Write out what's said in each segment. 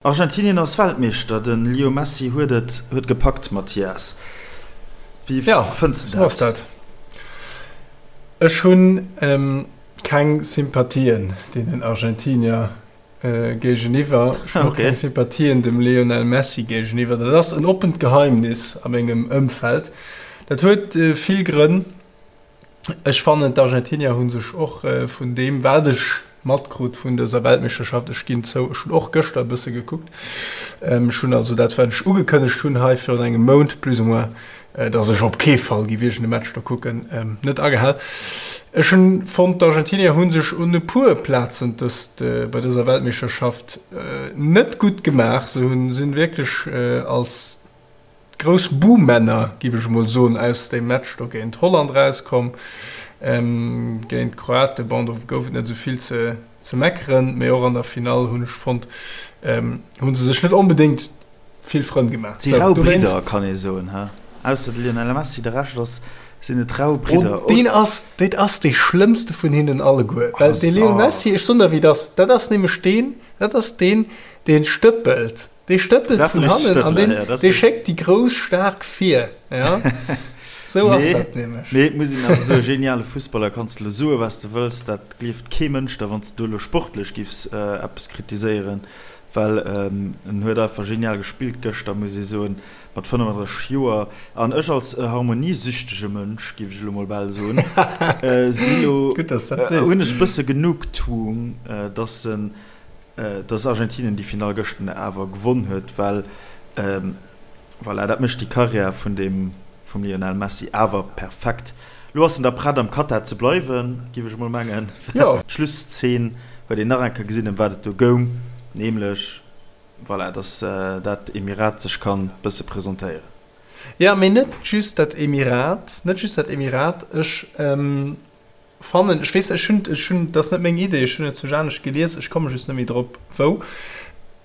Argentinien ass Weltmeeschter, de Leo Messi huet et huet gepackt, Mathias, wéi fënns de dat? Jo, sou ass dat. Ech hunn keng Sympathien deenen Argentinier géigeniwwer. Ech hunn och keng Sympathien dem Lionel Messi géigeniwwer. Dat ass en oppent Geheimnis a mengem Ëmfeld. Dat huet vill Grënn. Ech fannen d'Argentinier hu sech och vun deem wat ech matkrut vun dëser Weltmeeschterschaft, ech ginn zou, ech hunn och gëschter e bësse gekuckt, ech hunn also dat wat ech ugekënnegt hunn hei virun engem Mount plus ou moins, datt ech op kee Fall géif iergend e Match do kucken, net agehal. Ech hunn fonnt d'Argentinier hu sech un e puer Plazen dëst bei dëser Weltmeeschterschaft net gutt gemaach. Se hunn sinn wierklech als Grouss Buhmänner, giff ech emol soen, aus deem Match do géint Holland rauskomm. Géint d'Kroaten, bon, do gouf et net esou vill ze ze meckeren, mee och an der Finall hunn ech fonnt, hu se sech net onbedéngt vill Frënn gemaach. Et si rau Bridder, kann ee soen, he? Ausser de Lionel Messi, de Rescht ass, sinn et rau Bridder. Oh, deen ass, dat ass dee schlëmmste vun hinnen alleguer, well de Lionel Messi, ech soen der wéi et ass, dat ass nämlech deen, dat ass deen, dee stëppelt. Dee stëppelt vun hannen an deen, dee schéckt déi grouss staark vir. Ja? Sou ass dat nämlech. Mee et muss een awer soen, geniale Fussballer, kanns de elo soen, wat s de wëlls, dat gleeft kee Mënsch der, wann s de do elo sportlech giffs eppes kritiséieren, well en huet einfach genial gespillt gëschter, muss ee soen, mat 35 Joer. An ech als harmoniesüchtege Mënsch, giff ech elo mol bal soen, sinn elo, hunn ech e bësse Genugtuung, dass en dass Argentinien déi Finall gëschten awer gewonn huet, well voilà, dat mécht déi Karriär vun deem vum Lionel Messi awer perfekt. Lo ass en da prett am Katar ze bleiwen, géif ech emol mengen. D'Schlusszeen huet een nach eng Kéier gesinn, ëm wat et do goung, nämlech voilà, dass dat Emirat sech kann bësse presentéieren. Jo, mee net just dat Emirat, net just dat Emirat. Ech Fannen, ech weess, ech hunn, ech hunn, dat ass net meng Idee, ech hunn et zu anescht gelies, ech komme just net méi drop wou.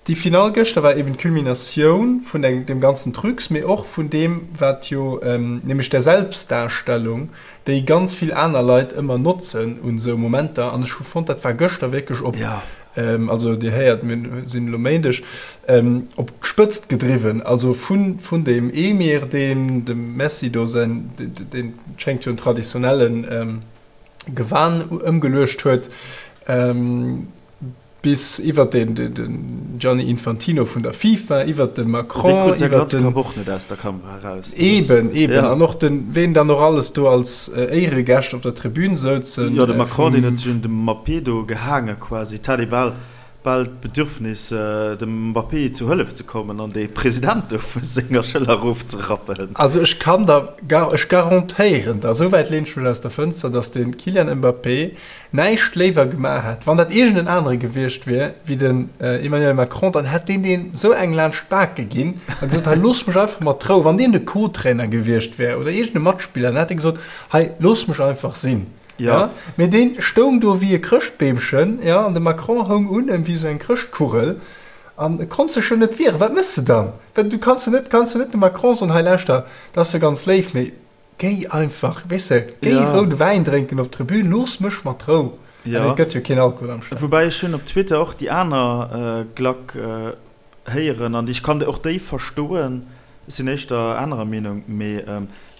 Déi Finall gëschter war eben d'Culminatioun vun eng, deem ganzen Trucs, mee och vun deem, wat jo, nämlech der Selbstdarstellung, déi ganz vill aner Leit ëmmer notzen un esou Momenter. An ech hu fonnt, dat war gëschter wierklech op, also Dir héiert, mir sinn elo Méindeg, op d'Spëtzt gedriwwen, also vun, vun deem Emir, deen dem Messi do säin, deen schéngt jo en traditionellen Gewan ëmgeluecht huet, bis iwwert den, den Gianni Infantino vun der FIFA, iwwert de Macron, Dee krut säi Glatzkapp och net aus der Kamera eraus. Eben, eben. An och den, ween dann och alles do als Éieregäscht op der Tribün souzen. Jo, de Macron, deen huet sech un dem Mbappé do gehaange quasi. Et hat ee bal bal d'Bedürfnis, dem Mbappé zu Hëllef ze kommen an de President do vu senger Schëller erofzerappen. Also ech kann der, ech garantéieren der, esou wäit lehn ech mech aus der Fënster, datt de Kylian Mbappé näischt léiwer gemaach hätt, wann dat iergend en anere gewiescht wier wéi den Emmanuel Macron, dann hätt deen deem esou eng laanscht d'Bake ginn a gesot, hei looss mech einfach mat Rou. Wann deen de Co-Trainer gewiescht wär oder iergend e Matspiller, dann hätt e gesot, hei looss mech einfach sinn. Ja. Mee deen stoung do wéi e Chrëschtbeemchen, ja, an de Macron houng un em wéi sou eng Chrëschtkugel an e konnt sech jo net wieren. Wat méchs de dann? Well du kanns jo net, kanns jo net dem Macron soen, hei lauschter, dat ass jo ganz léif, mee géi einfach, weess de, géi Ja. roude Wäin drénken op d'Tribün, looss mech mat Rou. Ja. An et gëtt jo keen Alkohol am Stadion. Woubäi ech hunn op Twitter och déi aner Glack héieren an ech kann och déi verstoen, ech sinn éischter anerer Meenung, mee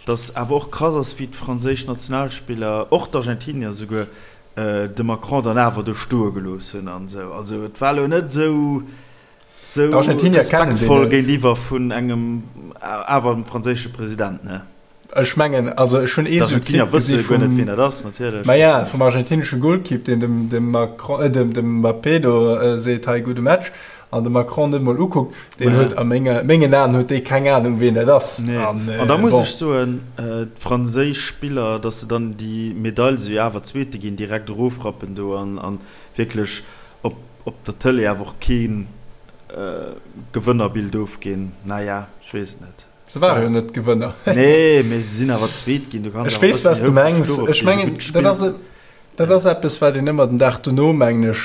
datt awer och krass ass wéi d'franséisch Nationalspiller, och d'Argentinier esouguer, de Macron dann awer do stoe gelooss hunn an esou. Also et war elo net esou esou respektvoll géintiwwer vun engem awer franséische President, ne? Ech mengen, also ech hunn ee sou Clip gesi vum, wien dat ass, natierlech. Ma ja, vum argentinesche Golkipp, deen dem, dem Macron, äh, dem, dem Mbappé do äh, seet, hei gudde Match, an de Macron net mol ukuckt, deen huet a menge, mengen Aen huet dee keng Anung, wien dat ass. Nee. An, äh, an da muss bon. ech soen, äh, d'franséisch Spiller, datt se dann déi Medail, se jo awer Zweete ginn, direkt erofrappen do an, an wierklech op, op der Tëlee awer och keen äh, Gewënnerbild ofginn, naja, ech weess et net. Se ware jo net Gewënner. Nee, mee se sinn awer Zweet ginn. Du kanns Ech weess, wat s de mengs. Ech mengen, dat ass, dat ass eppes, wat een ëmmer den Dag dono, mengen ech,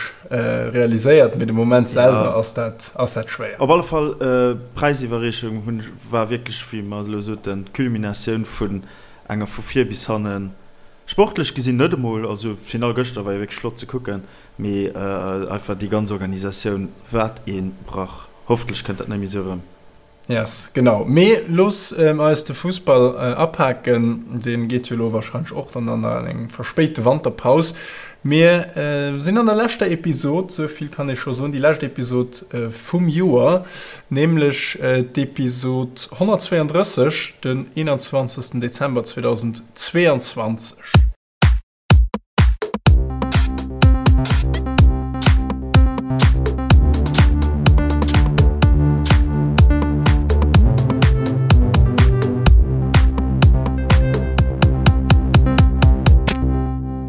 realiséiert, mee de Moment selwer ass dat, ass dat schwéier. Op alle Fall, d'Präisiwwerreechung hunn, war wierklech, wéi mer elo soten, d'Culminatioun vun enger vu vir bis hannen, sportlech gesinn net emol, also d'Finall gëschter war jo wierklech flott ze kucken, mee einfach déi ganz Organisatioun, wat ee Brach. Hoffentlech kënnt dat net méi esou erëm. Yes, genau. Mee looss eis de Fussball apaken. Dee geet jo elo warscheinlech och dann an eng verspéite Wanterpaus. Mir sinn an der leschter Episod, sou vill kann ee scho soen, déi lescht Episod vum Joer, nämlech d'Episod 132, den 21 Dezember 2022.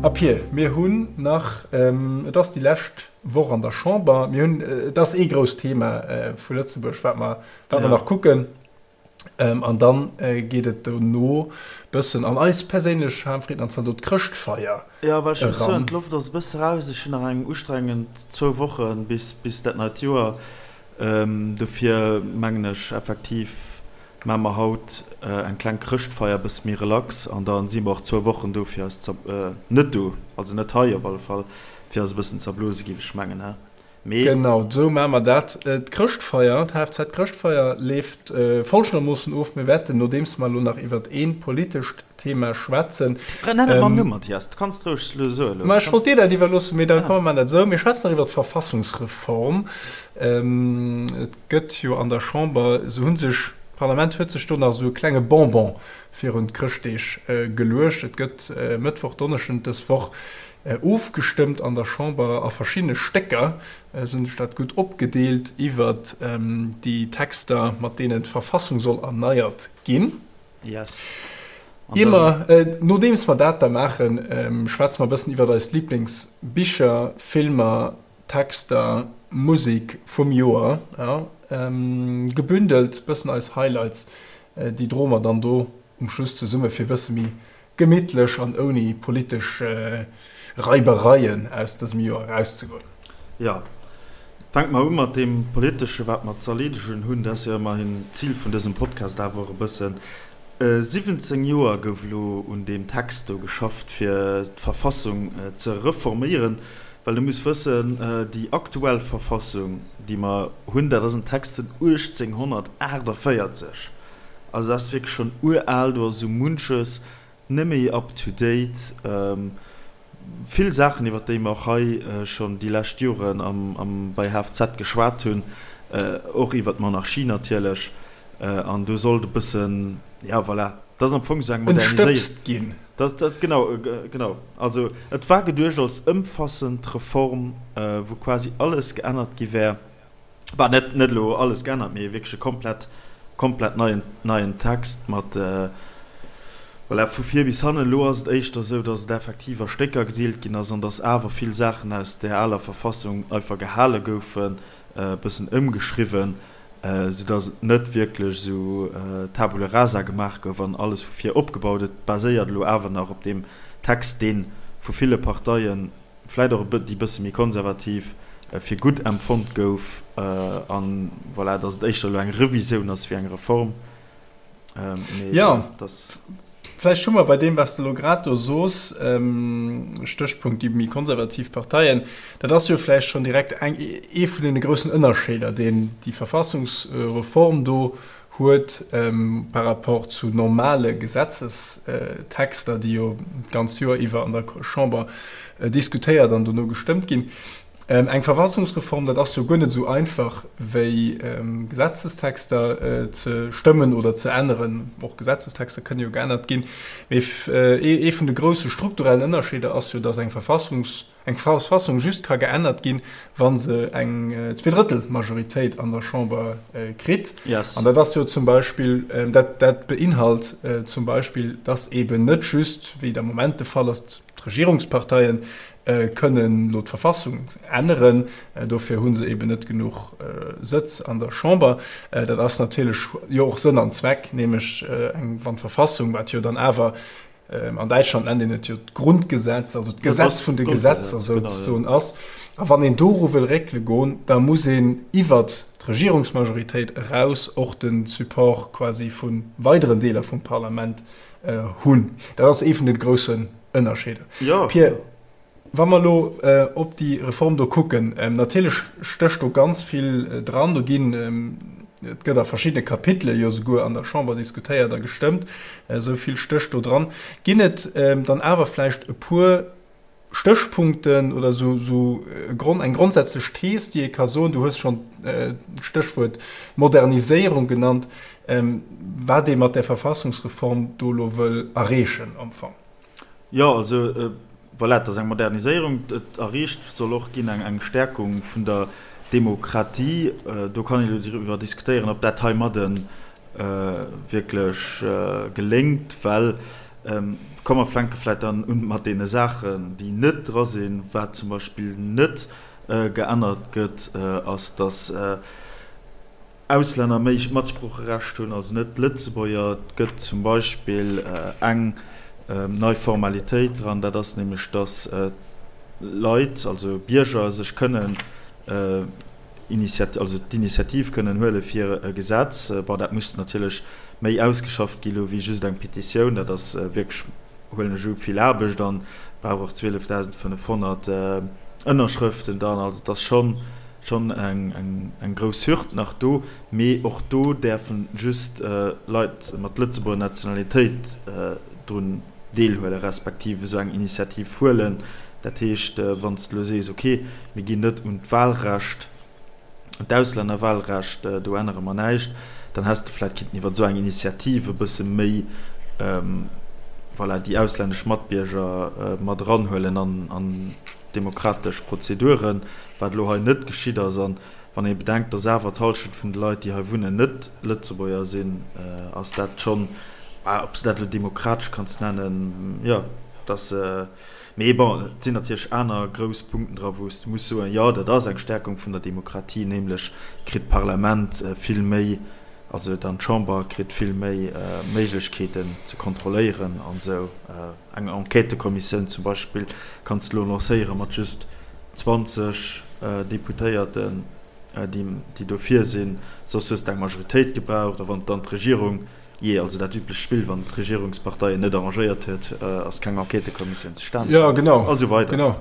A Pir, mir hunn nach, et ass déi lescht Woch an der Chamber, mir hunn, et ass ee grousst Thema vu Lëtzebuerg, wat mer, wat mer nach kucken. An dann geet et dono bëssen an eis perséinlech Harmfrieden an Zaldot Chrëschtfeier eran. Jo, well ech muss soen, d'Loft ass e bësse raus. Ech hunn nach eng ustrengend zwou Woche bis bis dat neit Joer. Dofir mengen ech effektiv, maache mer haut eng kleng Chrëschtfeier, e bësse méi relax an da si mer och zwou Wochen do fir eis ze, net do, also net hei op alle Fall, fir eis e bëssen ze erblose géif ech mengen, he? Mee. Genau, esou maache mer dat. D'Chrëschtfeier, d'HFZ-Chrëschtfeier leeft folgendermoossen of, Mir wäerten, nodeems mer elo nach iwwert ee politescht Thema schwätzen. Nenn et mam Numm, Mathias, du kanns et roueg elo soen. Ma ech wollt dir dat iwwerloossen, mee da komm, mer maachen dat esou. Mir schwätzen nach iwwert d'Verfassungsreform. Et gëtt jo an der Chamber, esou hu sech, d'Parlament huet sech do nach esou e klenge Bonbon virun d'Chrëschtdeeg geluecht. Et gëtt Mëttwoch, Donneschden dës Woch Ofgestëmmt an der Chamber a verschiddene Stécker, esou hunn ech dat gutt opgedeelt, iwwert déi Texter, mat deenen d'Verfassung soll erneiert ginn. Yes. Ier mer, nodeems mer dat da maachen, schwätze mer e bëssen iwwert eis Liblingsbicher, Filmer, Texter, Musek vum Joer, jo, gebündelt, bëssen eis Highlights, déi droe mer dann do um Schluss zesumme fir e bësse méi gemittlech an ouni politesch Reibereien aus dësem Joer erauszegoen. Jo, fänke mer u mat deem Politesche wat mer ze erleedegen hunn. Dat ass jo ëmmerhin d'Zil vun dësem Podcast awer och e bëssen. 17 Joer gouf elo un deem Text do geschafft, fir d'Verfassung ze reforméieren. Well du muss wëssen, déi aktuell Verfassung, déi mer hunn, dat ass en Text vun 1848. Also dat ass wierklech schonn ural, do ass esou munches net méi up to date. Vill Saachen, iwwer déi mer och hei schonn déi lescht Joren am bei HFZ geschwat hunn, och iwwer d'Monarchie natierlech. An do sollt e bëssen, ja voilà, dat ass am Fong esou eng Moderniséierung. Entstëbst ginn. Dat, dat, genau, genau. Also et war geduecht als ëmfassend Reform, wou quasi alles geännert gi wär. Bah, net, net elo alles geännert, mee wierklech e komplett, komplett neien, neien Text mat, voilà, vu vir bis hannen. Elo ass et éischter esou, datt et effektiv a Stécker gedeelt ginn ass an datt awer vill Saachen aus där aler Verfassung einfach gehale goufen, e bëssen ëmgeschriwwen, soudatt et net wierklech esou Tabula rasa gemaach gouf an alles vu vir opgebaut. Et baséiert elo awer nach op deem Text, dee vu ville Parteien, vläit och e déi bësse méi konservativ, fir gutt empfonnt gouf an voilà, datt et éischter elo eng Revisioun ass wéi eng Reform. Mee jo, dass. Vläicht hu mer bei deem, wat s de elo grad do soos, Stéchpunkt déi méi konservativ Parteien, dat ass jo vläicht schonn direkt eng, ee vun deene groussen Ënnerscheeder, deen déi Verfassungsreform do huet par rapport zu normale Gesetzestexter, déi jo d'ganz Joer iwwer an der Chamber diskutéiert an dono gestëmmt ginn. Eng Verfassungsreform, dat ass jo guer net esou einfach wéi Gesetzestexter ze stëmmen oder ze änneren. Och Gesetzestexter kënne jo geännert ginn. Mee ee vun de grousse strukturellen Ënnerscheeder ass jo, datt eng Verfassungs eng Verfassung just ka geännert ginn, wa se eng Zweedrëttelmajoritéit an der Chamber kritt. Yes. An dat ass jo zum Beispill, dat, dat beinhalt zum Beispill, dass eben net just, wéi et am Moment de Fall ass, d'Regierungsparteien kënnen elo d'Verfassung änneren. Dofir hu se eben net genuch Sëtz an der Chamber. Dat ass natierlech jo och Sënn an Zweck, nämlech eng, wann d'Verfassung, wat jo dann awer An Däitschland nennt een et jo d'Grundgesetz, also d'Gesetz vun de Gesetzer souzesoen ass. A wann een doru wëll réckele goen, da muss een iwwert d'Regierungsmajoritéit eraus och de Support quasi vu weideren Deeler vum Parlament hunn. Dat ass ee vun de groussen Ënnerscheeder. Pierre. Wa mer elo op déi Reform do kucken, natierlech stécht do ganz vill dran. Do ginn, et gëtt a verschiddene Kapitele jo souguer an der Chamber diskutéiert a gestëmmt, esou vill stécht do dran. Ginn et dann awer vläicht e puer Stéchpunkten oder esou esou e Grond, eng grondsätzlech Thees, déi ee ka soen, du hues schonn d'Stéchwuert Moderniséierung genannt, wat ee mat där Verfassungsreform do elo wëll erreechen am Fong? Jo, also voilà, et ass eng Moderniséierung. Et erreecht soll och ginn eng eng Stärkung vun der Demokratie. Do kann een elo driwwer diskutéieren, ob dat heimadde wierklech geléngt, well Komm mer fänke vläit dann un mat deene Saachen, déi net dra sinn. Wat zum Beispill net geännert gëtt, ass, datt Auslänner méi Matsproocherecht hunn, also net d'Lëtzebuerger. Et gëtt zum Beispill eng nei Formalitéit dran, dat ass nämlech, datt Leit, also Bierger, sech kënnen also d'Initiativ kënnen huele fir e Gesetz. Bon, dat muss natierlech méi ausgeschafft gi lo wéi just eng Petitioun. Dat ass wierklech, huelen ech u, vill Aarbecht an brauch och 12.500 Ënnerschrëften dann. Also et ass schonn schonn eng eng grouss Hürd nach do. Mee och do däerfe just Leit mat Lëtzebuerger Nationalitéit drun deelhuelen, respektiv esou eng Initiativ huelen. Dat heescht, wann s de elo sees, okay, mir ginn net un d'Wahlrecht, un d'Auslännerwahlrecht, do ännere mer näischt, dann häss de vläicht kinnten iwwer esou eng Initiativ e bësse méi, voilà, déi auslännesch Matbierger mat eranhuelen an d'demokratesch Prozeduren, wat elo hei net geschitt ass. An wann ee bedenkt, dass awer d'Hallschent vun de Leit, déi hei wunnen, net Lëtzebuerger sinn, ass dat schonn, ob s de dat elo demokratesch kanns nennen, jo, dass. Mee bon, et sinn natierlech aner grouss Punkten dra wou s de muss soen, jo, dat ass eng Stärkung vun der Demokratie, nämlech kritt d'Parlament vill méi, also dann d'Chamber kritt vill méi Méiglechkeeten ze kontrolléieren an esou. Eng Enquêtëkommissioun zum Beispill kanns de elo lancéiere mat just 20 Deputéierten, déi dofir sinn, soss hues de eng Majoritéit gebraucht. A wann dann d'Regierung Jee, also dat üblecht Spill, wann d'Regierungsparteien net arrangéiert huet, ass keng Enquêtëkommissioun zustane komm. Ja, genau. A sou weider. Genau.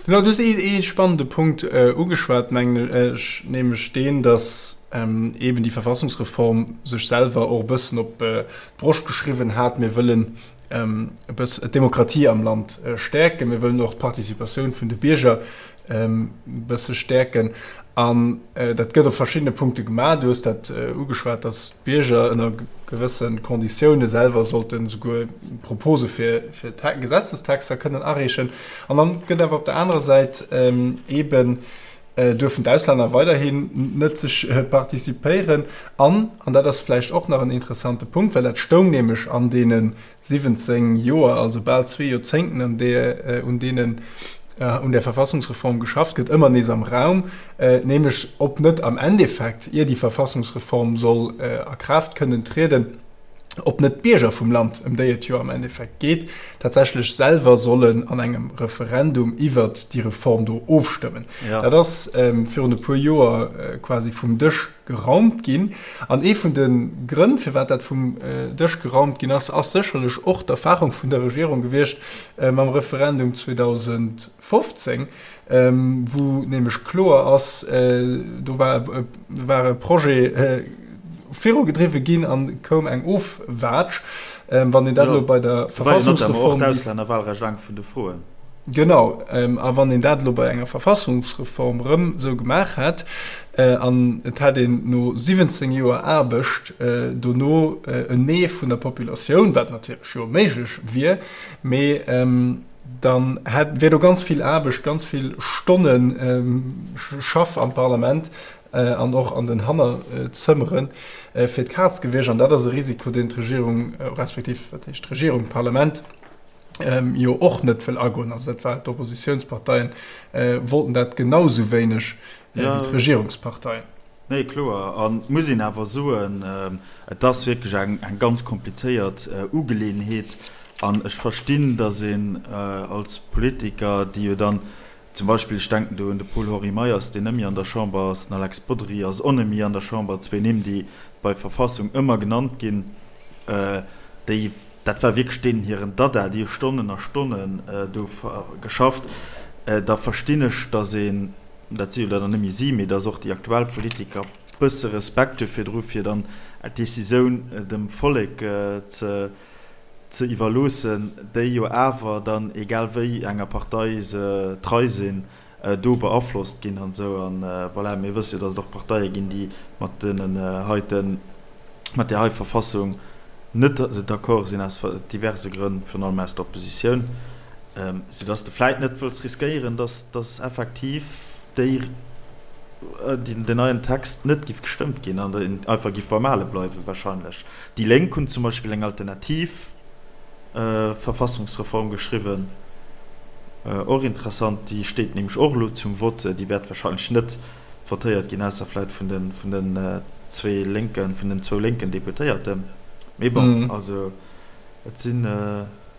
Genau, du hues ee spannende Punkt ugeschwat, mengen ech, nämlech deen, datt eeben déi Verfassungsreform sech selwer och e bëssen op d'Broscht geschriwwen hat, Mir wëllen e bëss d'Demokratie am Land stäerken, mir wëllen och d'Participatioun vun de Bierger e bësse stäerken. An dat gëtt op verschiddene Punkte gemaach. Du hues dat ugeschwat, datt d'Bierger ënner gewësse Konditioune selwer sollte souguer Propose fir Gesetzestexter kënnen areechen. An dann gëtt awer op der anerer Säit eeben duerfen d'Auslänner weiderhin net sech participéieren. An, an dat ass vläicht och nach en interessante Punkt, well dat stoung nämlech an deene 17 Joer, also bal zwee Joerzéngten, an där, un deenen un där Verfassungsreform geschafft gëtt, ëmmer nees am Raum, nämlech ob net am Endeffekt, ier déi Verfassungsreform soll a Kraaft kënnen trieden, ob net d'Bierger vum Land, ëm déi et jo am Endeffekt geet, tatsächlech selwer sollen an engem Referendum iwwert déi Reform do ofstëmmen. Dat ass virun e puer Joer quasi vum Dësch geraumt ginn. An ee vun de Grënn, firwat dat vum Dësch geraumt ginn ass, ass sécherlech och d'Erfahrung vun der Regierung gewiescht mam Referendum 2015, wou nämlech kloer ass, do war war e Projet virugedriwwe ginn an koum eng Ofwaatsch. Wann een dat elo bei der Verfassungsreform. D'Auslännerwahlrecht eng vun de Froen. Genau, a wann een dat elo bei enger Verfassungsreform erëm esou gemaach hätt an et hätt een no 17 Joer Aarbecht dono en Nee vun der Populatioun, wat natierlech jo méiglech wier, mee dann hätt, wier do ganz vill Aarbecht, ganz vill Stonne Schaff am Parlament an och an den Hannerzëmmere fir d'Kaz gewiescht. An dat ass e Risiko, deen d'Regierung, respektiv, wat heescht d'Regierung, d'Parlament jo och net wëll agoen. Also dat war, d'Oppositionsparteien wollten dat genau esou wéineg wéi d'Regierungsparteien. Nee, kloer. An et muss een awer soen, et ass wierklech eng ganz komplizéiert Ugeleeënheet. An ech verstinn, datt een als Politiker, déi jo dann zum Beispill, ech denken do un de Paul-Henri Meyers, deen net méi an der Chamber ass, den Alex Bodry ass och net méi an der Chamber, zwee Nimm, déi bei Verfassung ëmmer genannt ginn, déi, dat war wierklech deenen hiren Dada, déi hu Stonnen a Stonnen do geschafft. Da verstinn ech, datt een, dat si jo dann net méi si, mee datt och déi aktuell Politiker bësse Respekt hu virdru fir dann d'Decisioun dem Vollek ze ze iwwerloossen, déi jo awer dann, egal wéi enger Partei se trei sinn, do beaflosst ginn an esou. An voilà, mir wësse jo, datt et och Parteie ginn, déi mat deenen heiten, mat där hei Verfassung net d'accord sinn, aus diverse Grënn, virun allem aus der Oppositioun, soudatt de vläit net wëlls riskéieren, datt effektiv déi, den neien Text net giff gestëmmt ginn an einfach giff beim Ale bleiwen wahrscheinlech. Déi Lénk hunn zum Beispill eng alternativ Verfassungsreform geschriwwen, och interessant, déi steet nämlech och elo zum Vott, déi wäert wahrscheinlech net votéiert ginn, ausser vläit vun de vun den zwee lénken, vun den zwou lénken Deputéierten. Mee bon, also et sinn.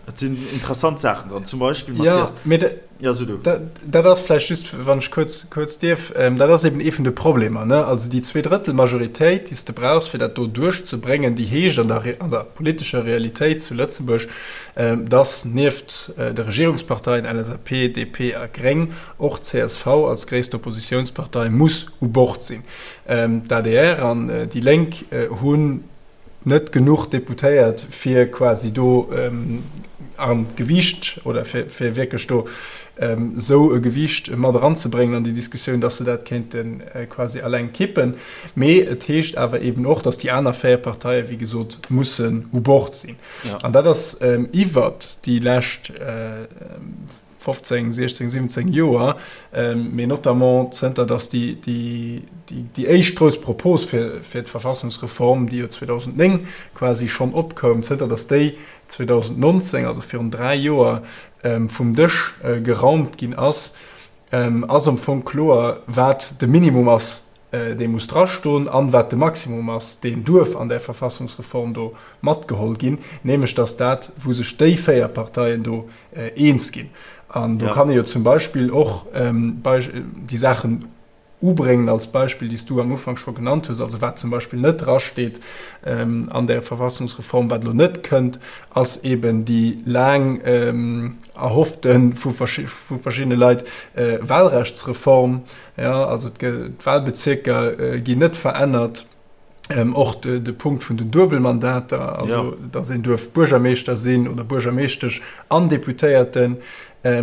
Et sinn interessant Saachen dran, zum Beispill, Mathias. Ja, mee ja, so du. Dat, dat ass vläicht just, wann ech kuerz, kuerz dierf, ähm, dat ass eben ee vun de Problemer, ne? Also déi Zweedrëttelmajoritéit, déi s de brauchs, fir dat do duerchzebréngen, déi heescht an der, an der politescher Realitéit zu Lëtzebuerg, ähm, dass nieft äh, de Regierungsparteien LSAP, DP a Gréng och csv als gréisst Oppositiounspartei muss u Bord sinn. Ähm, D'ADR an äh, déi Lénk äh, hunn net genuch Deputéiert, fir quasi do an d'Gewiicht oder fir, fir wierklech do esou e Gewiicht mat eranzebréngen an déi Diskussioun, dass se dat kéinte quasi alleng kippen. Mee et heescht awer eben och, dass déi aner 4 Parteien, wéi gesot, mussen u Bord sinn. An dat ass iwwert déi lescht 15, 16, 17 Joer, mee notamment zënter datt déi éischt grouss Propos fir d'Verfassungsreform, déi jo 2009 quasi schonn opkoum, zënter datt déi 2019, also virun dräi Joer, vum Dësch geraumt ginn ass, ass am Fong kloer, wat de Minimum ass, dee muss drastoen, an wat de Maximum ass, deen duerf an där Verfassungsreform do matgeholl ginn, nämlech datt dat, wou sech déi 4 Parteien do eens ginn. An do kann ee jo zum Beispill och déi Saachen ubréngen als Beispill, déi s du am Ufank scho genannt hues, also wat zum Beispill net drasteet an där Verfassungsreform, wat elo net kënnt, ass eben déi laang erhoffte vu verschiddene Leit Wahlrechtsreform, Jo, also d'Wahlbezierker ginn net verännert. Och de Punkt vun den Duebelmandater, also datt een duerf Buergermeeschter sinn oder Buergermeeschtesch an Deputéierten,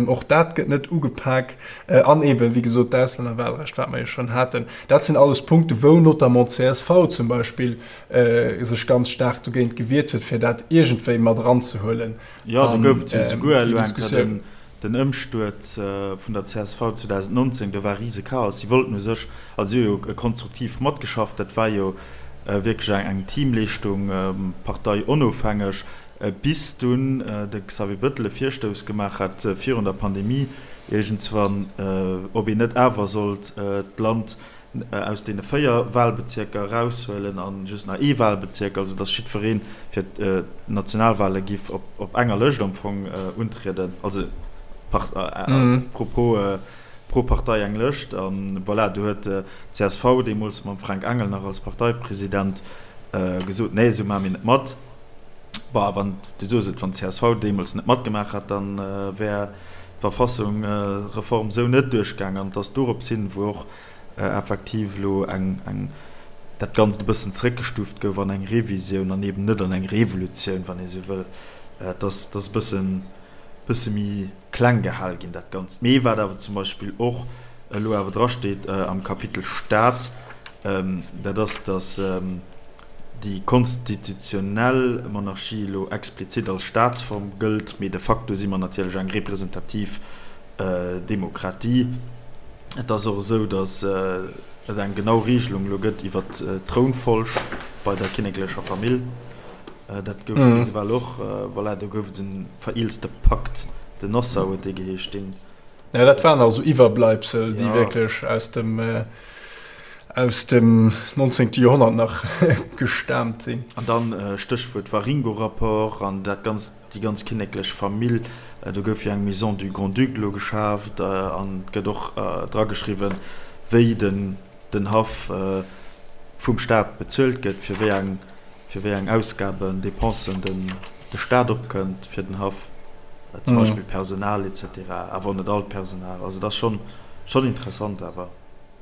och dat gëtt net ugepak. An eeben, wéi gesot, d'Auslännerwahlrecht, wat mer jo schonn haten. Dat sinn alles Punkte wou notamment d'CSV zum Beispill sech ganz staark dogéint gewiert huet, fir dat iergendwéi mat eranzehuelen an déi Diskussioun. Den Ëmstuerz vun der csv 2019, do war rise Chaos. Si wollten u sech, also si hu jo konstruktiv matgeschafft, dat war jo wierklech eng Teamleeschtung, parteionofhängeg, bis dunn de Xavier Bettel e Virstouss gemaach hat virun der Pandemie iergendswann, ob een net awer sollt d'Land aus deene 4 Wahlbezierker eraushuelen a just nach ee Wahlbezierk, also datt jiddweree fir d'Nationalwahle giff op enger Lëscht am Fong untrieden, also pro Partei eng Lëscht. A voilà, do huet d'CSV deemools mam Fränk Engel nach als Parteipresident gesot, nee, esou maache mir net mat. Bon, wann, du soos et, wann d'CSV deemools net matgemaach hätt, da wär d'Verfassungreform esou net duerchgaang. An et ass dorops hin, wou och effektiv elo eng, eng, dat Ganzt e bëssen zréckgestuuft gouf an eng Revisioun an eben net an eng Revolutioun, wann ee sou wëll. Et ass, et ass e bëssen, bësse méi kleng gehal ginn, dat Ganzt. Mee wat awer zum Beispill och elo awer drasteet am Kapitel Staat, dat ass, datt déi konstitutionell Monarchie elo explizit als Staatsform gëllt, mee de facto si mer natierlech eng representativ Demokratie. Et ass och esou, datt et eng genau Regelung elo gëtt iwwer d'Trounfolg bei der kinneklecher Famill. Dat gouf bis ewell och, voilà, do gouf et e vereelzte Pakt, den Nassau huet dee geheescht, deen. Jo, dat waren nach esou Iwwerbleibsel, déi wierklech aus dem, aus dem 19. Joerhonnert nach gestaamt sinn. An dann Stéchwuert Waringo-Rapport an dat Ganzt. Déi ganz kinneklech Famill, do gouf jo eng Maison du Grand-Duc elo geschaaft an et gëtt och drageschriwwen, wéi den Haff vum Staat bezuelt gëtt, fir wéi eng, fir wéi eng Ausgaben, Dépensen den de Staat opkënnt fir den Haff. Zum Beispill Personal etc. Awer och net all d'Personal. Also et ass schonn, schonn interessant awer.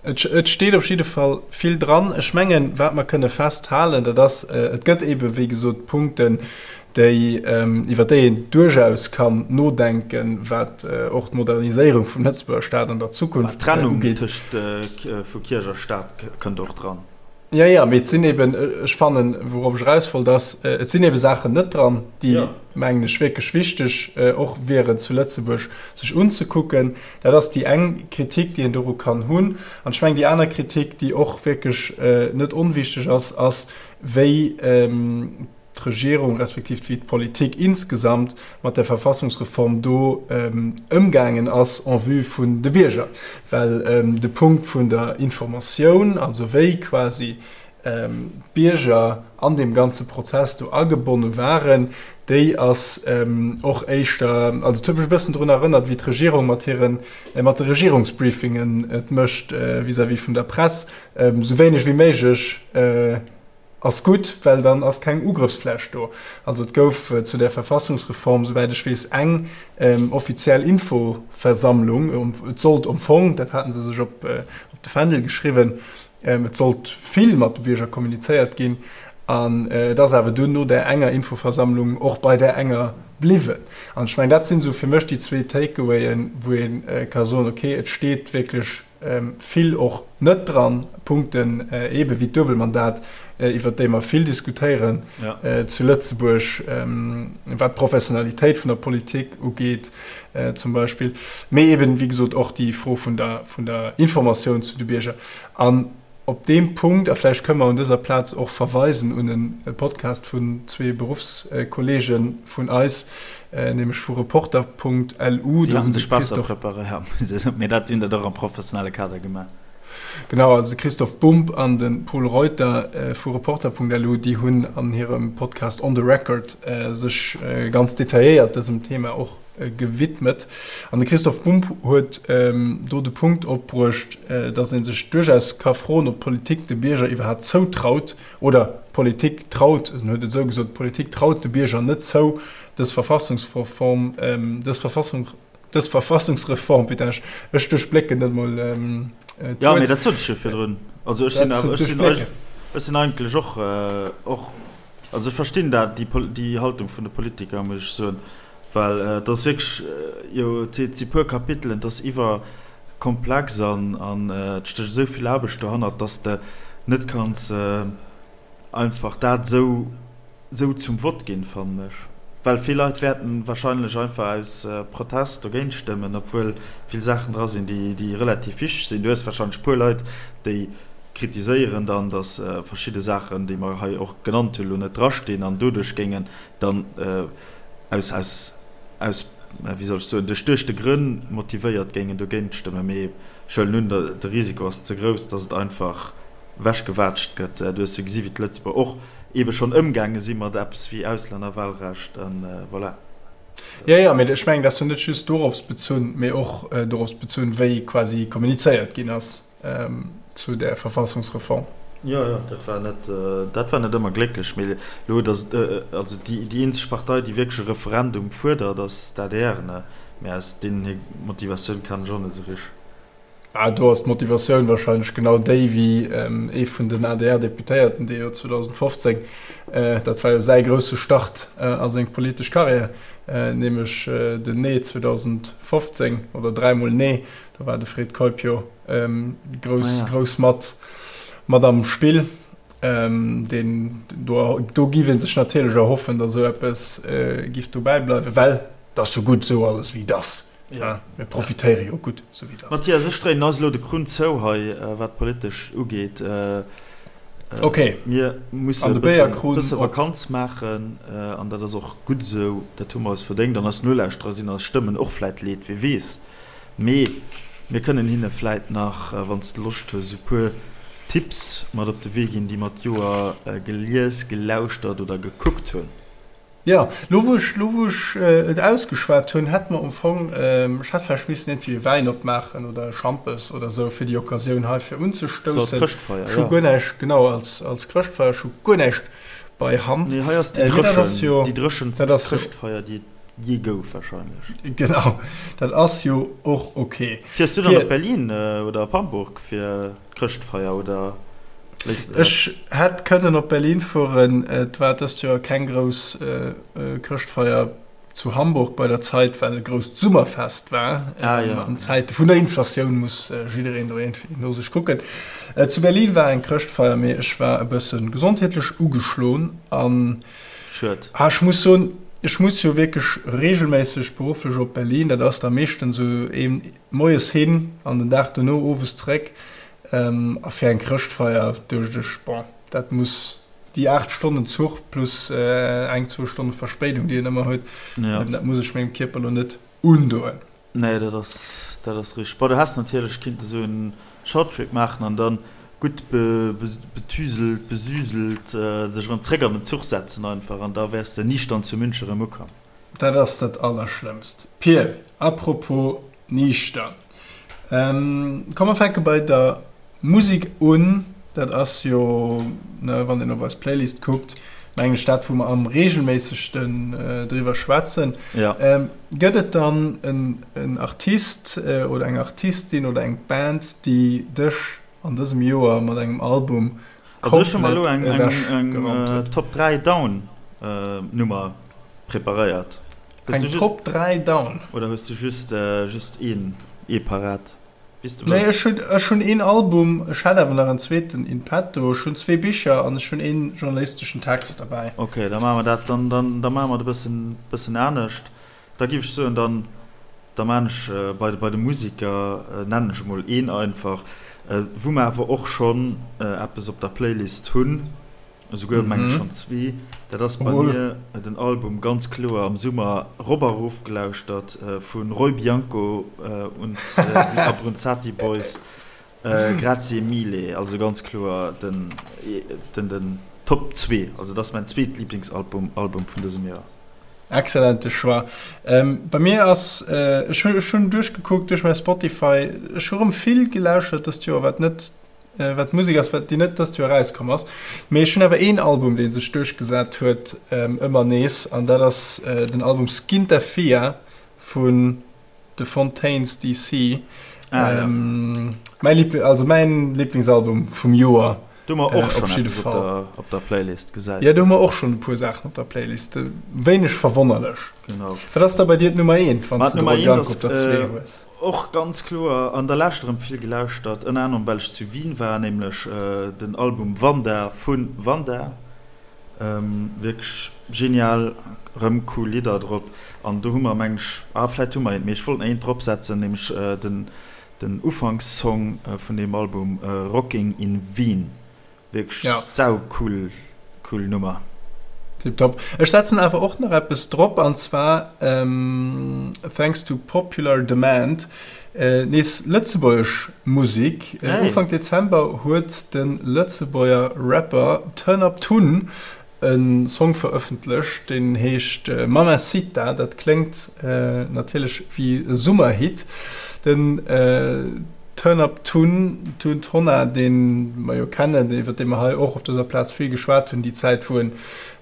Et steet op jidde Fall vill dran. Ech mengen, wat mer kënne festhalen, dat ass, et gëtt eebe wéi gesot Punkten, déi, iwwer déi een duerchaus kann nodenken, wat och d'Moderniséierung vum Lëtzebuerger Staat an der Zukunft ugeet. D'Trennung tëscht vu Kierch a Staat kënnt och dran. Jo, jo, mee et sinn eben, ech fannen, wourop ech eraus wollt, ass, et sinn ebe Saachen net dran, déi, mengen ech, wierklech wichteg och wieren zu Lëtzebuerg sech unzekucken. Dat ass déi eng Kritik, déi een doru kann hunn. An ech mengen, déi aner Kritik, déi och wierklech net onwichteg ass, ass, wéi d'Regierung respektiv wéi d'Politik insgesamt mat der Verfassungsreform do ëmgaangen ass en vue vun de Bierger. Well de Punkt vun der Informatioun, also wéi quasi d'Bierger an deem ganze Prozess do agebonne waren, déi ass och éischter, also et huet mech e bëssen drun erënnert, wéi d'Regierung mat hiren, mat de Regierungsbriefingen et mécht vis-à-vis vun der Press, esou wéineg wéi méiglech Ass gutt, well dann ass keng Ugrëffsfläch do. Also et gouf zu där Verfassungsreform, souwäit ech weess, eng offiziell Infoversammlung. Et sollt am Fong, dat hate se sech op de Fändel geschriwwen, et sollt vill mat de Bierger kommunizéiert ginn. An et ass awer dunn no där enger Infoversammlung och bei där enger bliwwen. An ech mengen, dat sinn esou fir mech déi zwee Takeawayen, wou ee ka soen, okay, et steet wierklech vill och net dran, Punkten eebe wéi d'Duebelmandat, iwwert déi mer vill diskutéieren zu Lëtzebuerg, wat d'Professionalitéit vun der Politik ugeet zum Beispill, mee eeben, wéi gesot, och déi Fro vun der, vun der Informatioun zu de Bierger. An op deem Punkt, a vläicht kënne mer un dëser Plaz och verweisen un e Podcast vun zwee Beruffskolleege vun eis, nämlech vu Reporter.lu. Déi hunn sech besser preparéiert, mee dat hunn dat och am professionelle Kader gemaach. Genau, also de Christoph Bumb an de Pol Reuter vu Reporter.lu, déi hunn an hirem Podcast On the Record sech ganz detailléiert dësem Thema och gewidmet. An de Christoph Bumb huet do de Punkt opbruecht, datt ee sech duerchaus ka froen, ob d'Politik de Bierger iwwerhaapt zoutraut, oder d'Politik traut, en huet et esou gesot, d'Politik traut de Bierger net zou, dës Verfassungsreform, dës Verfassung, dës Verfassungsreform, putain, ech, ech duerchblécken net mol d'Wuert. Jo, mee dat sot ech jo virdrun. Also ech sinn awer, ech sinn, ech sinn eigentlech och, och, also ech verstinn dat, déi, déi Haltung vun de Politiker, muss ech soen, well et ass wierklech, jo, et si puer Kapitelen, et ass iwwerkomplex an, an et stécht esou vill Aarbecht dohannert, dass de net kanns einfach dat esou, esou zum Vott ginn, fannen ech. Well vill Leit wäerten wahrscheinlech einfach aus Protest dogéint stëmmen, obwuel vill Saachen dra sinn, déi, déi relativ wichteg sinn. Du hues wahrscheinlech e puer Leit, déi kritiséieren dann, datt verschidde Saachen, déi mer hei och genannt hunn, elo net drastinn an doduerch géingen dann aus, aus, aus, wéi soll ech soen, duerch duechte Grënn motivéiert géingen dogéint stëmmen. Mee ech huelen un, de Risiko ass ze grouss, datt et einfach wechgewaatscht gëtt. Du hues jo gesi wéi d'Lëtzebuerger och eebe schonn ëmgaange si mat eppes wéi Auslännerwahlrecht an voilà. Jo, jo, mee ech mengen, dat ass jo net just dorops bezunn, mee och dorops bezunn, wéi quasi kommunizéiert ginn ass zu där Verfassungsreform. Jo, jo, dat war net, dat war net ëmmer glécklech. Mee elo, datt, also déi, déi eenzeg Partei, déi wierklech e Referendum fuerdert, ass d'ADR, ne? Mee aus deenen hir Motivatioun kennen ech och net esou richteg. Ah, do ass d'Motivatioun wahrscheinlech genau déi wéi ee vun den ADR-Deputéierten, dee jo 2015, dat war jo säi grousse Start a seng politesch Karriär, nämlech den Nee 2015 oder dräimol Nee, do war de Fred Keup jo grouss, grouss mat, mat am Spill. Deen, do, do giff ee sech natierlech erhoffen, datt esou eppes giff dobäi bleiwen, well et ass jo gutt esou alles wéi et ass. Ja, mir profitéiere jo gutt, sou wéi et ass. Mathias, ech dréinen eis elo de Krunn zou hei, wat politesch ugeet. Ok. Mir musse e bësse Vakanz maachen an dat ass och gutt esou. Dat hu mer eis verdéngt an eis Nolauschterer sinn eis Stëmmen och vläit leed, wie weess. Mee mir kënnen hinne vläit nach, wann s de Loscht hues, e puer Tipps mat op de Wee ginn, déi mer d'Joer gelies, gelauschtert oder gekuckt hunn. Jo, lo wou ech, lo wou ech et ausgeschwat hunn, hätt mer am Fong, ech hätt vläicht missen iergendwéi e Wäin opmaachen oder e Schampes oder esou fir déi Occasioun hei fir So als unzestoussen. Chrëschtfeier, Ech hu jo. guer näischt, genau, als, als Chrëschtfeier, ech hu guer näischt bei Hand. Nee, hei ass déi Mee dat ass dréchen, jo, déi dréchenst dat ass jo. Chrëschtfeier, déi et. jee gouf wahrscheinlech. Genau, dat ass jo och ok. Fiers du dann op Berlin oder op Hamburg fir d'Chrëschtfeier oder léiss de dat? Ech hätt kënnen op Berlin fueren, et war dëst Joer keng grouss Chrëschtfeier zu Hamburg bei der Zait, well e grousst Summerfest war. Ah, ja. An Zäite vun der Inflatioun muss jiddereen do iergendwéi no sech kucken. Zu Berlin war eng Chrëschtfeier, mee ech war e bësse gesondheetlech ugeschloen an Schued. Ah, ech muss soen, ech muss jo wierklech reegelméisseg berufflech op Berlin. Dat ass da meeschtens esou een moies hin an den Dag dono owes zeréck. A fir eng Chrëschtfeier duecht ech, bon, dat muss déi 8 Stonnen Zuch plus eng, zwou Stonne Verspéidung, déi een ëmmer huet, ja. dat muss ech mengem Kierper lo net undoen. Nee, dat ass, dat ass richteg. Bon, du häss natierlech kinnte sou en Shorttrip maachen an dann gutt betüselt, besüselt sech erëm zréck an den Zuch setzen einfach an da wäers de niichtern zu München erëm ukomm. Dat ass dat Allerschlëmmst. Pir, apropos niichter, komm mer fänke bei der Musek un. Dat ass jo, ne, wann een op eis Playlist kuckt, mengen ech dat, wou mer am reegelméissegsten driwwer schwätzen. Ja. Gëtt et dann en Artist oder eng Artistin oder eng Band, déi dech an dësem Joer mat engem Album Also ech hu mer elo eng eng Top 3 Down Nummer preparéiert. Eng Top 3 Down? Oder hues du just just een ee parat? Wéi s du wëlls. Nee, ech hunn ech hunn een Album, ech hätt awer nach en zweeten in petto. Ech hunn zwee Bicher an ech hunn een journalisteschen Text derbäi. Ok, da maache mer dat, dann dann da maache mer et e bëssen bëssen anescht. Da géif ech soen, dann da maan ech bei bei de Musiker, nennen ech emol een einfach, wou mer awer och schonn eppes op der Playlist hunn, esouguer meng ech schonn zwee. Dat ass bei mir den Album ganz kloer am Summer rop a rof gelauschtert vu Roy Bianco und die Abruzzati Boys, Grazie mille. Also ganz kloer den den den Top zwee, also dat ass mäin zweet Liblingsalbum Album vun dësem Joer. Excellente Choix. Bei mir ass, ech hunn ech hunn duerchgekuckt duerch mäi Spotify, ech hu rëm vill gelauschtert dëst Joer, wat net, wat Musek ass, wat déi net dëst Joer erauskomm ass. Mee ech hunn awer een Album, dee sech duerchgesat huet ëmmer nees, an dat ass den Album Skinta Fia vun The Fontaines DC. Ah, ja. Mäi Liebl also mäin Lieblingsalbum vum Joer. Do hu mer och schonn eppes op der, op der Playlist, gesäis de. Jo, do hu mer och schonn e puer Saachen op der Playlist. Wéineg verwonnerlech. Genau. Wat ass da bei dir d'Nummer eent, wann s de de Roy Bianco op der zwee hues? Och ganz kloer an der Lescht erëm vill gelauschtert, ënner anerem well ech zu Wien war, nämlech den Album Wanda vu Wanda. Wierklech genial, rëm cool Lidder drop an do hu mer meng ech, ah vläit hu mer eent, mee ech wollt nach eent drop setzen, nämlech den den Ufankssong vun deem Album Rocking in Wien, wierklech sau cool cool Nummer. Tiptop. Ech setzen awer och nach eppes drop an zwar thanks to popular demand Nees lëtzebuergesch Musek, Ufank Dezember huet de Lëtzebuerger Rapper Turn Up Tun e Song verëffentlecht, deen heescht Mamacita. Dat kléngt natierlech wéi e Summerhit. Den Turn Up Tun, Tun Tonna, dee mer jo kennen, iwwer dee mer hei och op dëser Plaz vill geschwat hunn, déi Zäit wou en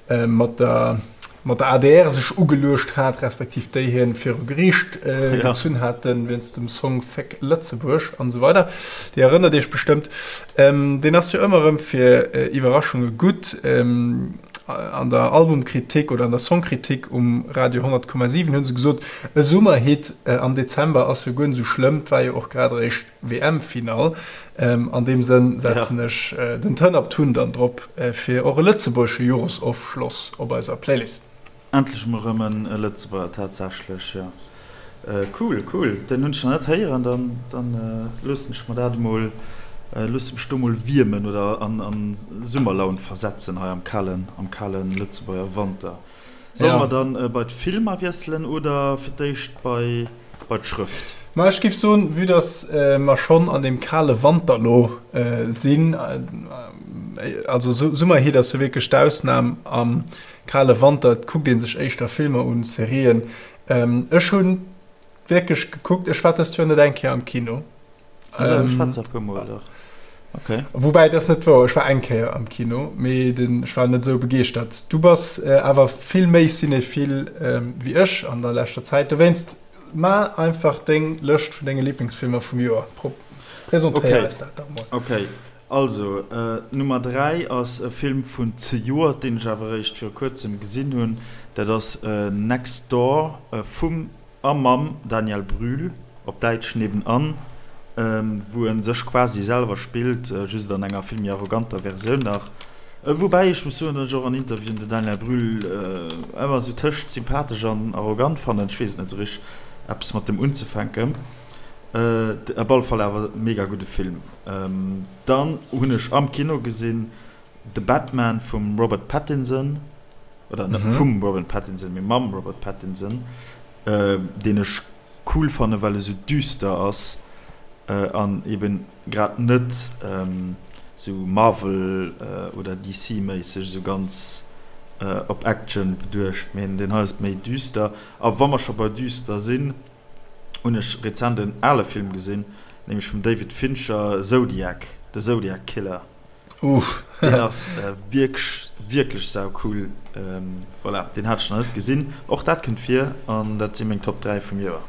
mat der mat der adr sech ugeluecht hat, respektiv déi hien viru Geriicht gezunn haten, wéinst dem Song Féck Lëtzebuerg an esou weider. Dir erënnert iech bestëmmt. Deen ass jo ëmmer erëm fir Iwwerraschunge gutt. An der Albumkritik oder an der Songkritik um Radio 100,7 hu se gesot, e Summerhit am Dezember ass jo guer net esou schlëmm, 't war jo och grad eréischt WM-Finall. An deem Sënn setzen ech den Turn Up Tun dann drop fir och e lëtzebuergesche Joresofschloss op eiser Playlist. Endlech mol rëm e Lëtzebuerger, tatsächlech, jo. Cool, cool, den hunn ech nach net héieren, dann dann loossen ech mer dat emol, loosse mech do mol wiermen oder an an Summerlaun versetzen hei am kalen, am kalen Lëtzebuerger Wanter. Solle mer dann bei d'Filmer wiesselen oder fir d'éischt bei bei d'Schrëft? Ma ech géif soen, vue dass mer schonn an deem kale Wanter lo sinn, also Summerheat ass jo wierklech d'Ausnam, am kale Wanter kuckt ee sech éischter Filmer un, Serien. Ech hu wierklech gekuckt, ech war dëst Joer net eng Kéier am Kino. Also ech war zwar e puer Mol, dach. Okay. Woubäi, dat ass net wouer, ech war eng Kéier am Kino, mee den, ech war net esou begeeschtert. Du bass awer vill méi cinéphile wéi ech an der leschter Zäit, dowéinst ma einfach deng Lëscht vun denge Liblingsfilmer vum Joer. Presentéier eis dat dach mol. Okay, also Nummer 3 ass e Film vun zejoert, deen ech awer eréischt viru kuerzem gesinn hunn. Dat ass Next Door vum A mam Daniel Brühl, op Däitsch Nebenan, wou en sech quasi selwer spillt, just an enger vill méi arroganter Versioun nach. Woubäi ech muss soen, datt ech och an Interviewen den Daniel Brühl ëmmer esou tëscht sympathesch an arrogant fannen. Ech weess et net esou richteg eppes mat dem unzefänken. Op alle Fall awer mega gudde Film. Dann hunn ech am Kino gesinn The Batman vum Robert Pattinson, oder net vum Robert Pattinson, mee mam Robert Pattinson, deen ech cool fannen, well e sou düster ass an eben grad net sou Marvel oder DC méisseg sou ganz op Action beduecht, mee deen hei ass méi düster. A wa mer scho bei düster sinn, hunn ech rezent en ale Film gesinn, nämlech vum David Fincher, Zodiac, The Zodiac Killer. Uff. Deen ass wierklech, wierklech saucool. Voilà, deen hat ech nach net gesinn. Och dat kënnt vir an dat si meng Top 3 vum Joer.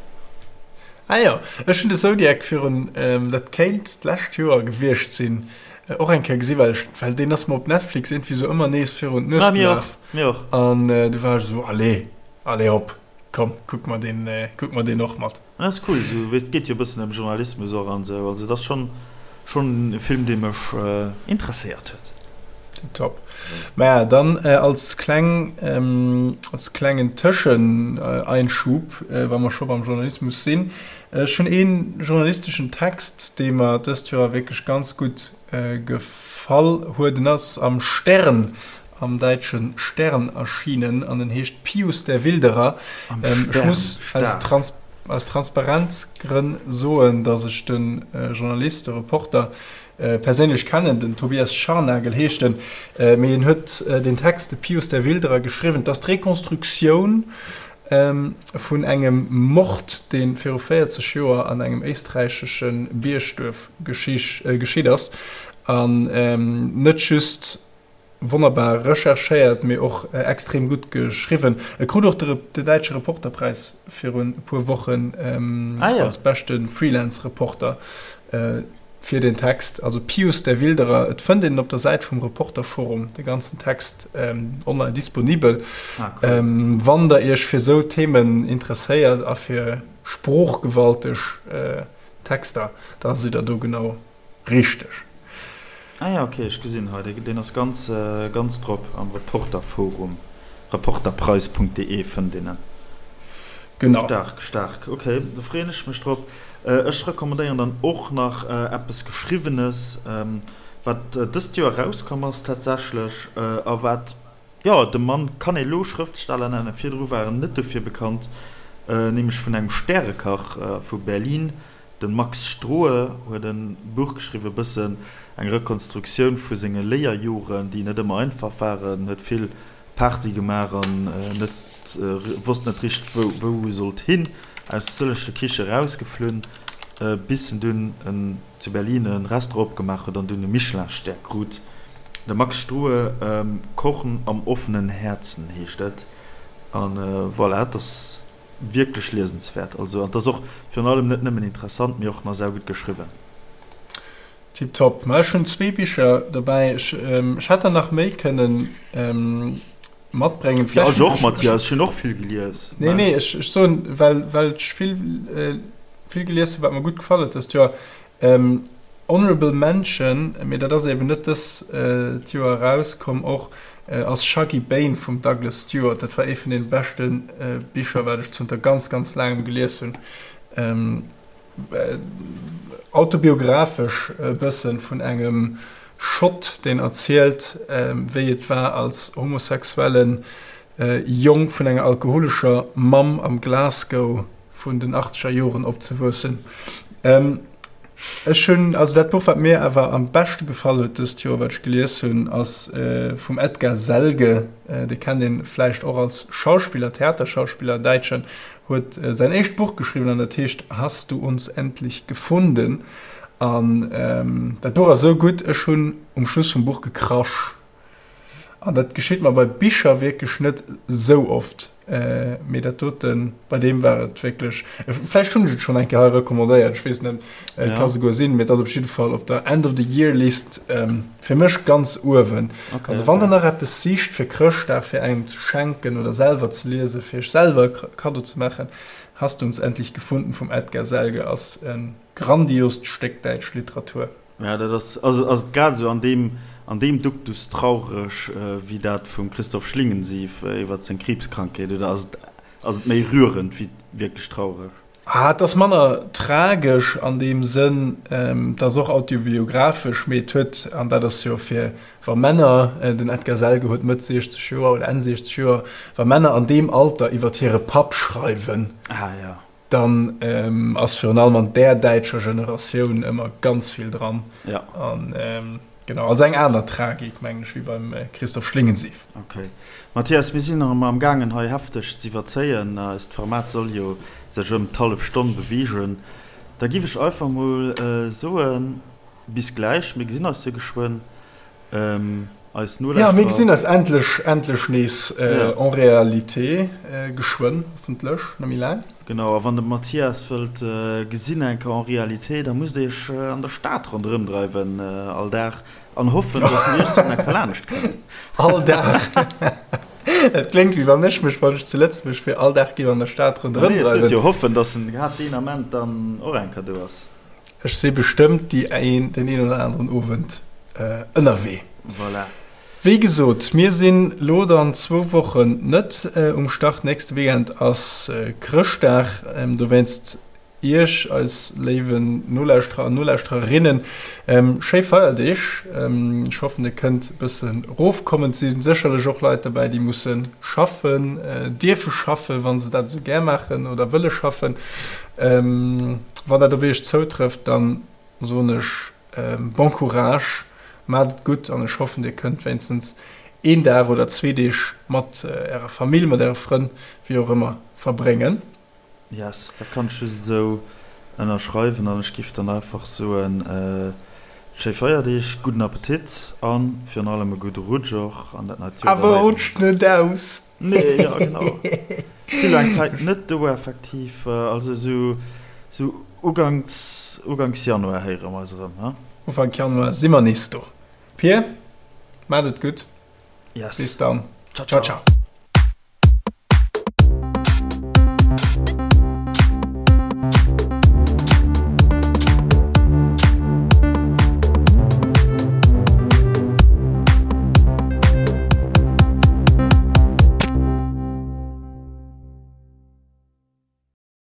Ah jo, ech hunn de Zodiac virun, dat kéint d'lescht Joer gewiescht sinn, och eng Kéier gesinn, well ech, well deen ass mer op Netflix iergendwéi sou ëmmer nees virun d'Nues gelaf. Mir och, mir och. An du war ech esou, allez, allez hop, komm, kuck mer deen, kuck mer deen och mat. Dat ass cool, esou weess, et geet jo e bëssen ëm Journalismus och an esou, also et ass schonn schonn e Film dee mech interesséiert huet. Tiptop. Maja, dann als kleng als klengen Tëscheneinschub, wa mer scho beim Journalismus sinn, ech hunn ee journalisteschen Text, dee mer dëst Joer wierklech ganz gutt Gefall huet. En ass am Stern, am däitsche Stern erschienen an en heescht Pius der Wilderer. Am Ech Stern, muss aus staark. Trans aus Transparenzgrënn soen, datt ech de Journalist, de Reporter perséinlech kennen, den Tobias Scharnagel heescht en, mee en huet deen Text, de Pius der Wilderer, geschriwwen. Et ass d'Rekonstruktioun vun engem Mord, dee viru 40 Joer an engem éisträichesche Biergduerf geschitt ass. An net just wonnerbar recherchéiert, mee och extrem gutt geschriwwen. E krut och de däitsche Reporterpräis virun e puer Wochen als beschte Freelance-Reporter. Fir den Text, also Pius der Wilderer, et fënnt een en op der Säit vum Reporterforum, de ganzen Text online disponibel. Ah, cool. Wann der iech fir sou Themen interesséiert a fir sproochgewalteg Texter, da sidd der do genau richteg. Ah ja, ok, ech gesinn hei, deen ass ganz, ganz drop am Reporterforum, reporterpreis.de fënnt een en. Genau. Staark, staark, ok, do freeën ech mech drop. Ech recommandéieren dann och nach eppes Geschriwwenes, wat dëst Joer erauskomm ass tatsächlech a wat, jo, de Mann kann ee lo Schrëftsteller nennen, virdru war en net dofir bekannt, nämlech vun engem Stärekach vu Berlin, de Max Strohe huet e Buch geschriwwen, e bëssen eng Rekonstruktioun vu senge Léierjoren, déi net ëmmer einfach waren, huet vill Party gemaach an net wosst net richteg wou wou e sollt hin, aus sëlleche Kiche rausgeflunn, bis en dunn en zu Berlin e Restaurant opgemaach huet an dunn e Michelin-Stär krut. De Max Strohe, Kochen am offenen Herzen heescht et an voilà, et ass wierklech liesenswäert, also an et ass och virun allem net nëmmen interessant, mee och nach saugutt geschriwwen. Tiptop. Ma ech hunn zwee Bicher dobäi. Ech, ech hätt der nach méi kënnen matbréngen. Ja, ech och, Mathias. Ech hunn och vill gelies. Nee, nee, ech, ech soen, well, well ech vill, vill gelies hunn, wat mer gutt gefall huet dëst Joer. Honorable Mention, mee dat ass eben net dëst Joer erauskomm och, ass Shuggie Bain vum Douglas Stuart. Dat war ee vun deene beschte Bicher, wat ech zënter ganz, ganz laangem gelies hunn. Autobiographesch e bëssen vun engem Schott, deen erzielt, wéi et war als homosexuelle Jong vun enger alkoholescher Mamm am Glasgow vun den achtzeger Joren opzewuessen. Ech hunn, also dat Buch wat mir awer am beschte gefall huet dëst Joer, wat ech gelies hunn, ass vum Edgar Selge, dee kennt ee vläicht och als Schauspiller, Theaterschauspiller, däitschen, huet säin éischt Buch geschriwwen an dat heescht Hast du uns endlich gefunden? An dat Buch ass esou gutt, ech hunn um Schluss vum Buch gekrasch. An dat geschitt mer bei Bicher wierklech net esou oft, mee dat doten, bei deem war et wierklech, vläicht hunn ech et schonn eng Kéier hei recommandéiert, ech weess net, et ka souguer sinn, mee et ass op jidde Fall op der End of the Year List fir mech ganz uewen. Also wann der nach eppes sicht fir Chrëschtdag, fir engem ze schenken oder selwer ze liesen, fir iech selwer e Kaddo ze maachen, Hast du uns endlich gefunden vum Edgar Selge ass e grandiost Stéck däitsch Literatur. Ja, dat ass, ass, ass et grad esou an deem, an deem Duktus traureg wéi dat vum Christoph Schlingensief iwwer seng Kriibskrankheet, oder ass et, ass et méi rührend wéi wierklech traureg? Ah, et ass manner tragesch an deem Sënn, et ass och autobiographesch, mee et huet, an dat ass jo fir, wa Männer, den Edgar Selge huet Mëtt 60 Joer oder Enn 60 Joer, wa Männer an deem Alter iwwer hire Papp schreiwen, Ah, ja. Dann ass virun allem an där däitscher Generatioun ëmmer ganz vill dran. Ja. An genau, also eng aner Tragik, mengen ech, wéi beim Christoph Schlingensief. Okay. Mathias, mir sinn nach ëmmer am gaangen hei hefteg z'iwwerzéien. Eist Format soll jo sech ëm d'hallef Stonn beweegen. Da giff ech einfach mol soen, bis gläich, mir gesinn eis jo geschwënn. Eis Nolauschterer. Ja, mir gesinn eis endlech, endlech nees en réalité geschwënn, hoffentlech, net méi laang. Genau, a wann der de Mathias wëllt gesinn eng Kéier en réalité, da musst der iech an der Stad ronderëm dreiwen all Dag an hoffen, dass en iech sou eng Kéier laanscht kënnt. All Dag? Dat kléngt wéi wann ech mech, wann ech zu Lëtzebuerg wier, all Dag géif an der Stad ronderëm dreiwen. Nee, ech sot jo hoffen, dass en grad deen Ament dann och eng Kéier do ass. Ech si bestëmmt déi een, deen een oder aneren Owend ënnerwee. Voilà. Wéi gesot, mir sinn lo dann zwou Wochen net um Start. Nächste Weekend ass Chrëschtdag. Dowéinst Iech, eis léiwen Nolauschterer an Nolauschtererinnen, schéi Feierdeeg. Ech hoffen, Dir kënnt e bësse rofkommen. Et si sécherlech och Leit derbäi, déi musse schaffen, dierfe schaffen, wa se dat esou gär maachen oder wëlle schaffen. Wann dat op iech zoutrëfft, dann soen ech bon courage, maacht et gutt an ech hoffen dir kënnt wéinstens een Dag oder zwee Deeg mat ärer Famill, mat äre Frënn, wéi och ëmmer, verbréngen. Yes, dat kann ech just esou ënnerschreiwen an ech giff dann einfach soen, schéi Feierdeeg, gudden Appetit an virun allem e gudde Rutsch och an dat neit Joer. Awer rutscht net aus! Nee, ja genau. Si lo eng Zäit net do effektiv. Also sou sou uganks uganks Januar héiere mer eis erëm, he? Ufank Januar si mer nees do. Pir, maacht et gutt. Yes. Bis dann. Ciao, ciao. Ciao, ciao.